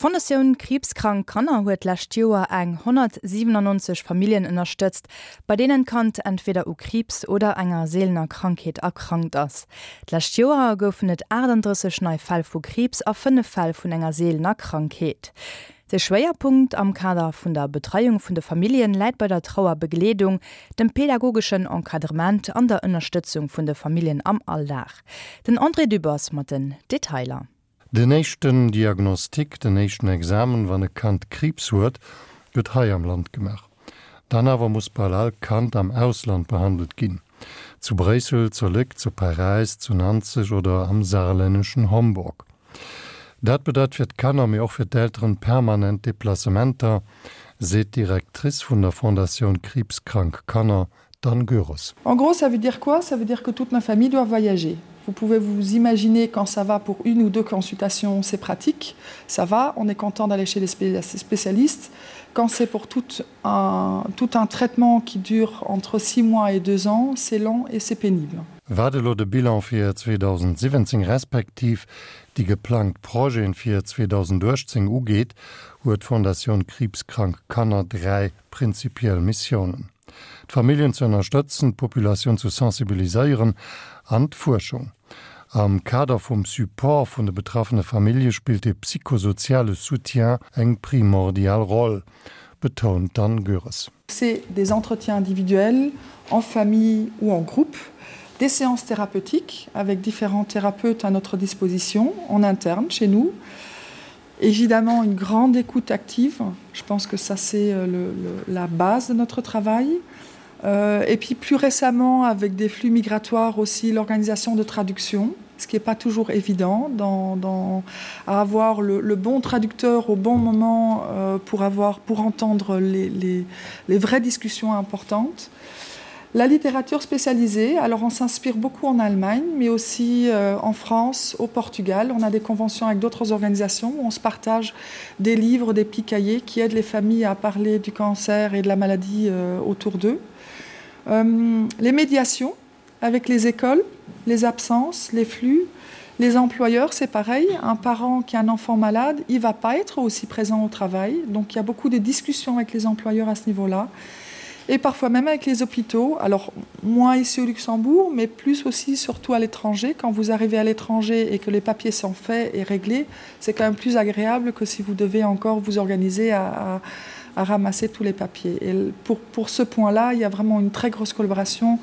D'Fondatioun Kriibskrank Kanner huet d'lescht Joer eng 197 Familljen ënnerstëtzt, bei deenen d'Kand entweder u Kriibs oder enger seelener Krankheet erkrankt ass. D'lescht Joer goufen et 38 nei Fäll vu Kriibs a 5 Fäll vun enger seelener Krankheet. De Schwéierpunkt am Kader vun der Betreiung vun de Familljen läit bei der Trauerbegleedung, dem pedagogeschen Encadrement an der Ënnerstëtzung vun de Familljen am Alldag. Den André Dübbers mat den Detailer. Den éischten Diagnostic, den éischten Examen, wann e Kand Kriibs huet, gëtt hei am Land gemaach. Dann awer muss bal all Kand am Ausland behandelt ginn. Zu Bréissel, zu Léck, zu Paräis, zu Nanzeg oder am saarlänneschen Homburg. Dat bedeit fir d'Kanner, mee och fir d'Elteren permanent Deplacementer, seet d'Directrice vun der Fondatioun Kriibskrank Kanner, d'Anne Goeres. En gros, ça veut dire quoi? Ça veut dire que toute ma famille doit voyager. Vous pouvez vous imaginer quand ça va pour une ou deux consultations, c'est pratique, ça va, on est content d'aller chez les spécialistes. Quand c'est pour tout un, tout un traitement qui dure entre six mois et deux ans, c'est long et c'est pénible. Wat elo de Bilan fir 2017 respektiv déi geplangt Projeten fir 2018 ugeet, huet d'Fondatioun Kriibskrank Kanner 3 prinzipiell Missiounen, d'Familljen ze ënnerstëtzen, d'Populatioun ze sensibiliséieren an d'Fuerschung. Am Kader vum Support vun de betraffene Famillje spillt de psychosoziale Soutien eng primordial Roll, betount d'Anne Goeres. C'est des entretiens individuels, en famille ou en groupe, des séances thérapeutiques avec différents thérapeutes à notre disposition en interne chez nous. Évidemment une grande écoute active, je pense que ça c'est euh, la base de notre travail. Euh, et puis plus récemment avec des flux migratoires aussi l'organisation de traduction, ce qui n'est pas toujours évident dans, dans, à avoir le, le bon traducteur au bon moment euh, pour, avoir, pour entendre les, les, les vraies discussions importantes. La littérature spécialisée, alors on s'inspire beaucoup en Allemagne, mais aussi euh, en France, au Portugal. On a des conventions avec d'autres organisations où on se partage des livres, des petits cahiers qui aident les familles à parler du cancer et de la maladie euh, autour d'eux. Euh, les médiations avec les écoles, les absences, les flux, les employeurs, c'est pareil. Un parent qui a un enfant malade, il va pas être aussi présent au travail. Donc il y a beaucoup de discussions avec les employeurs à ce niveau-là et parfois même avec les hôpitaux, alors moins ici au Luxembourg, mais plus aussi surtout à l'étranger. Quand vous arrivez à l'étranger et que les papiers sont faits et réglés, c'est quand même plus agréable que si vous devez encore vous organiser à, à, à ramasser tous les papiers. Et pour, pour ce point-là, il y a vraiment une très grosse collaboration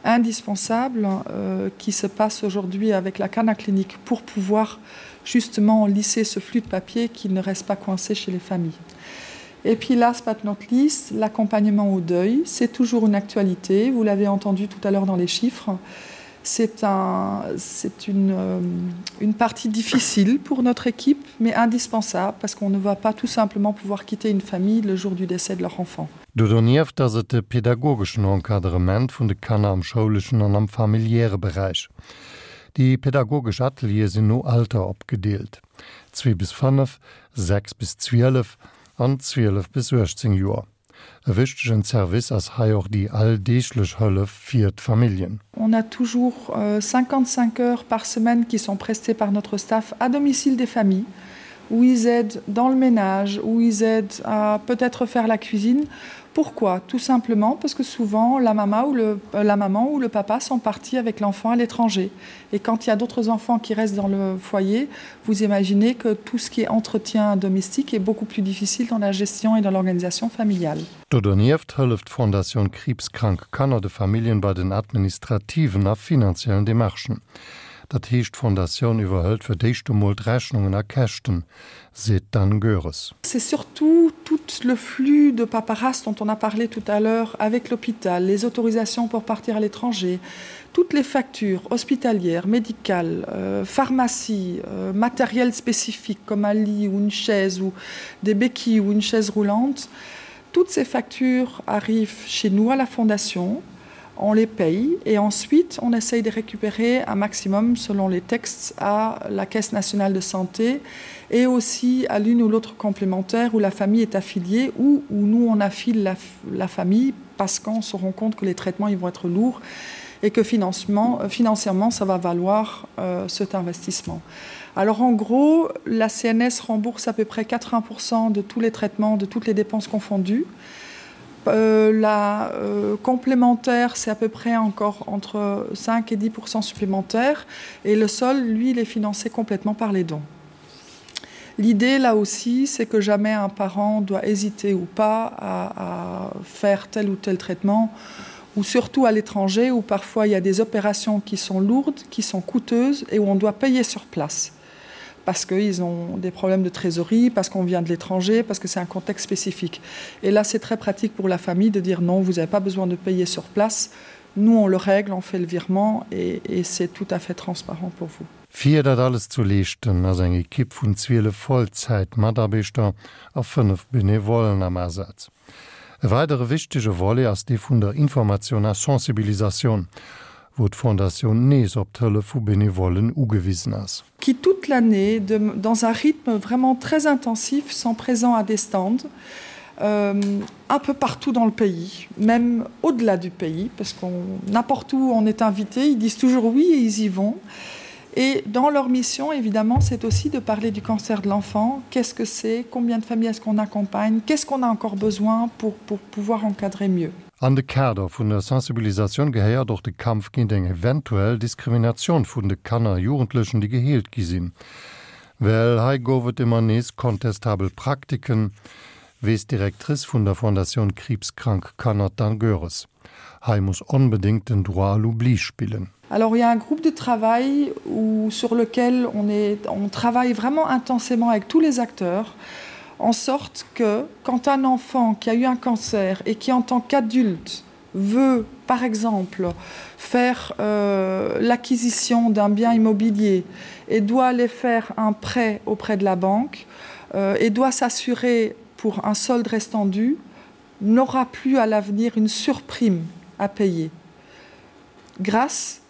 indispensable euh, qui se passe aujourd'hui avec la Cana Clinique pour pouvoir justement lisser ce flux de papier qui ne reste pas coincé chez les familles. Et puis last but not least, l'accompagnement au deuil, c'est toujours une actualité, vous l'avez entendu tout à l'heure dans les chiffres. C'est un, une, euh, une partie difficile pour notre équipe, mais indispensable parce qu'on ne va pas tout simplement pouvoir quitter une famille le jour du décès de leur enfant. Do donieft ass et de pedagogeschen Encadrement vun de Kanner am schouleschen an am familiäre Beräich. Déi pedagogesch Ateliere sinn no Alter opgedeelt, zwee bis 5, 6 bis 12 an 12 bis 18 Joer. E wichtegen Service ass hei och déi alldeeglech Hëllef fir d'Familljen. On a toujours 55 euh, heures par semaine qui sont prestées par notre staff à domicile des familles, où ils aident dans le ménage, où ils aident à peut-être faire la cuisine. Pourquoi Tout simplement parce que souvent la, mama ou le, euh, la maman ou le papa sont partis avec l'enfant à l'étranger. Et quand il y a d'autres enfants qui restent dans le foyer, vous imaginez que tout ce qui est entretien domestique est beaucoup plus difficile dans la gestion et dans l'organisation familiale. Do donieft hëlleft d'Fondatioun Kriibskrank Kanner de Familljen bei den administrativen a finanziellen Demarchen. Dat heescht, d'Fondatioun iwwerhëlt fir d'éischt emol d'Rechnungen a Käschten, seet d'Anne Goeres. C'est surtout tout le flux de paperasse dont on a parlé tout à l'heure avec l'hôpital, les autorisations pour partir à l'étranger, toutes les factures hospitalières, médicales, euh, pharmacie, euh, matériel spécifique comme un lit ou une chaise ou des béquilles ou une chaise roulante. Toutes ces factures arrivent chez nous à la fondation, on les paye et ensuite on essaye de récupérer un maximum selon les textes à la Caisse nationale de santé et aussi à l'une ou l'autre complémentaire où la famille est affiliée ou où nous on affile la, la famille parce qu'on se rend compte que les traitements ils vont être lourds et que financement, euh, financièrement ça va valoir euh, cet investissement. Alors en gros, la CNS rembourse à peu près 80% de tous les traitements, de toutes les dépenses confondues. Euh, la euh, complémentaire, c'est à peu près encore entre 5 et 10% supplémentaires. Et le sol, lui, il est financé complètement par les dons. L'idée là aussi, c'est que jamais un parent doit hésiter ou pas à, à faire tel ou tel traitement ou surtout à l'étranger où parfois il y a des opérations qui sont lourdes, qui sont coûteuses et où on doit payer sur place parce qu'ils ont des problèmes de trésorerie, parce qu'on vient de l'étranger, parce que c'est un contexte spécifique. Et là, c'est très pratique pour la famille de dire non, vous n'avez pas besoin de payer sur place. Nous, on le règle, on fait le virement et, et c'est tout à fait transparent pour vous. Fir dat alles zu leeschten, ass eng Ekipp vun 12 Vollzäit-Mataarbechter a 5 Benevollen am Asaz. E weidere wichtege Volet ass dee vun der Informatioun a Sensibilisatioun, wou d'Fondatioun nees op d'Hëllef vu Benevollen ugewisen ass. Qui toute l'année, de, dans un rythme vraiment très intensif, sont présents à des stands euh, un peu partout dans le pays, même au-delà du pays, parce qu'on n'importe où on est invité, ils disent toujours oui et ils y vont. Et dans leur mission, évidemment, c'est aussi de parler du cancer de l'enfant. Qu'est-ce que c'est Combien de familles est-ce qu'on accompagne Qu'est-ce qu'on a encore besoin pour, pour pouvoir encadrer mieux An de Kader vun der Sensibilisatioun gehéiert och de Kampf géint eng eventuell Diskriminatioun vun de Kanner a Jugendlechen, déi geheelt gi sinn. Well hei gouf et ëmmer nees kontestabel Praktiken, weess d'Directrice vun der Fondatioun Kriibskrank Kanner, d'Anne Goeres. Hei muss onbedéngt den Droit à l'oubli spillen. Alors il y a un groupe de travail où, sur lequel on, est, on travaille vraiment intensément avec tous les acteurs, en sorte que quand un enfant qui a eu un cancer et qui en tant qu'adulte veut par exemple faire euh, l'acquisition d'un bien immobilier et doit aller faire un prêt auprès de la banque euh, et doit s'assurer pour un solde restant dû, n'aura plus à l'avenir une surprime à payer grâce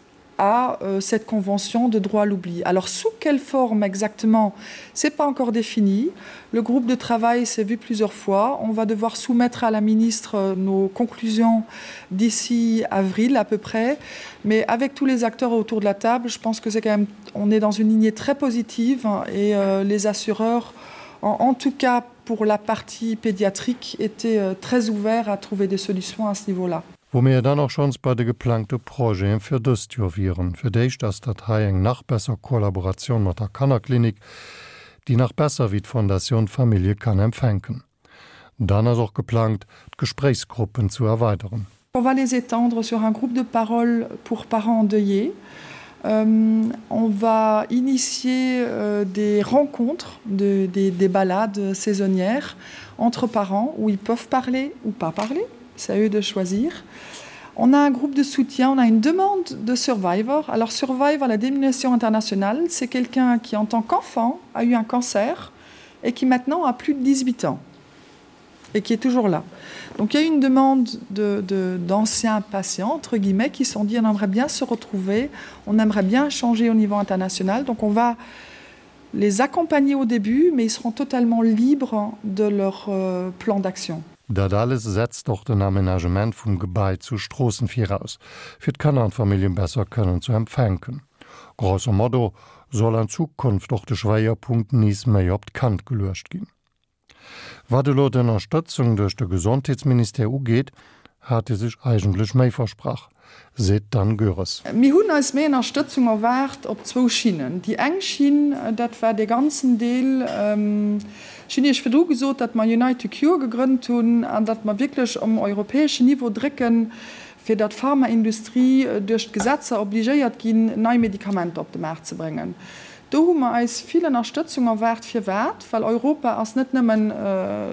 à euh, cette convention de droit à l'oubli. Alors sous quelle forme exactement, c'est pas encore défini. Le groupe de travail s'est vu plusieurs fois. On va devoir soumettre à la ministre euh, nos conclusions d'ici avril à peu près. Mais avec tous les acteurs autour de la table, je pense que c'est quand même on est dans une lignée très positive et euh, les assureurs en, en tout cas pour la partie pédiatrique étaient euh, très ouverts à trouver des solutions à ce niveau-là. Wou mir dann och schonns bei de geplangte Projete fir dëst Joer wieren. Fir d'éischt ass dat hei eng nach besser Kollaboratioun mat der Kannerklinik, déi nach besser wéi d'Fondatioun d'Famillje kann empfänken. Dann ass och geplangt, d'Gespréichsgruppen zu erweideren. On va les étendre sur un groupe de parole pour parents endeuillés. Euh, on va initier euh, des rencontres, de, des, des balades saisonnières entre parents où ils peuvent parler ou pas parler c'est à eux de choisir. On a un groupe de soutien, on a une demande de Survivor. Alors Survivor, la dénomination internationale, c'est quelqu'un qui en tant qu'enfant a eu un cancer et qui maintenant a plus de 18 ans et qui est toujours là. Donc il y a une demande d'anciens de, de, patients entre guillemets qui sont dit on aimerait bien se retrouver, on aimerait bien changer au niveau international. Donc on va les accompagner au début, mais ils seront totalement libres de leur euh, plan d'action. Dat alles setzt och den Amenagement vum Gebai zu Stroossen viraus, fir d'Kanner an d'Familljen besser kënnen zu empfänken. Grosso modo soll an Zukunft och de Schwéierpunkt nees méi op d'Kand geluecht ginn. Wat elo d'Ënnerstëtzung duerch de Gesondheetsministère ugeet, hat ee sech eigentlech méi versprach, seet d'Anne Goeres. Mir hunn eis méi Ënnerstëtzung erwaart op zwou Schinnen. Déi eng Schinn, dat war dee ganzen Deel, ech hunn Iech virdru gesot, datt mer Unite to Cure gegrënnt hunn an datt mer wierklech um europäeschen Niveau drécken, fir datt d'Pharmaindustrie duerch d'Gesetzer obligéiert ginn, nei Medikamenter op de Maart ze bréngen. Do hu mer eis vill Ënnerstëtzung erwaart. Firwat? Well Europa ass net nëmmen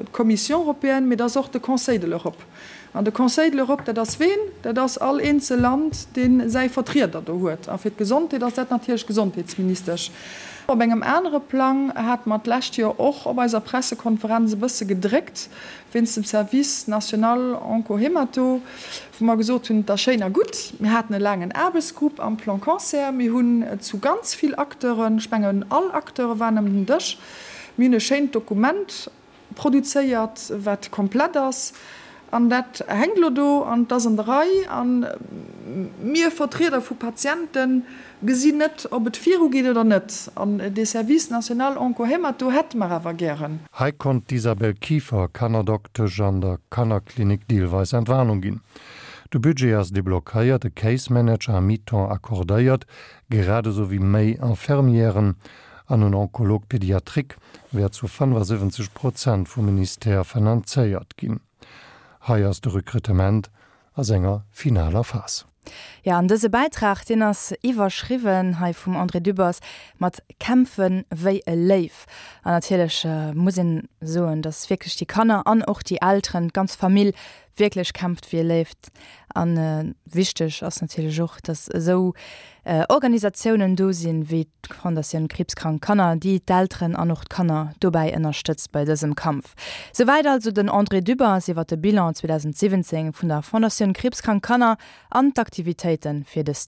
d'Commission européenne, mee et ass och de Conseil de l'Europe. An de Conseil de l'Europe, dat ass ween? Dat ass all eenzel Land, dee säi Vertrieder do huet. A fir d'Gesondheet ass dat natierlech d'Gesondheetsministesch. Op engem anere Plang hate mer d'lescht Joer och op eiser Pressekonferenz e bësse gedréckt wéinst dem Service national onco-hémato, wou mer gesot hunn, et ass schéin a gutt, mir haten e laangen Aarbechtsgrupp am Plan Cancer, mir hunn zu ganz vill Acteuren, ech mengen all Acteure waren ëm den Dësch, mir hunn e schéint Dokument produzéiert, wat komplett ass. An dat hänkt elo do an et ass an der Rei. A mir Vertrieder vu Patiente gesinn net, ob et virugeet oder net. An dee Service national onco-hémato hätte mer awer gären. Hei konnt d'Isabelle Kieffer, Kannerdoktesch an der Kannerklinik, deelweis Entwarnung ginn. De Budget ass deblockéiert, e Case Manager à mi-temps accordéiert, grad esou wéi méi Infirmièren an en Oncologue pédiatrique wäert zu 75 Prozent vum Ministère finanzéiert ginn. Hei ass de Recrutement a senger finaler Phas. Jo, an dëse Bäitrag, deen ass iwwerschriwwen hei vum André Dübbers mat Kämpfe wéi e Léiw. An natierlech muss een soen, datt wierklech déi Kanner an och déi Elteren, d'ganz Famill wierklech kämpft wéi e Léiw. A wichteg ass natierlech och, datt esou Organisatiounen do sinn, wéi d'Fondatioun Kriibskrank Kanner, déi d'Elteren an och d'Kanner dobäi ënnerstëtzt bei dësem Kampf. Souwäit also den André Dübbers iwwer de Bilan 2017 vun der Fondatioun Kriibskrank Kanner an d'Aktivitéite fir dëst.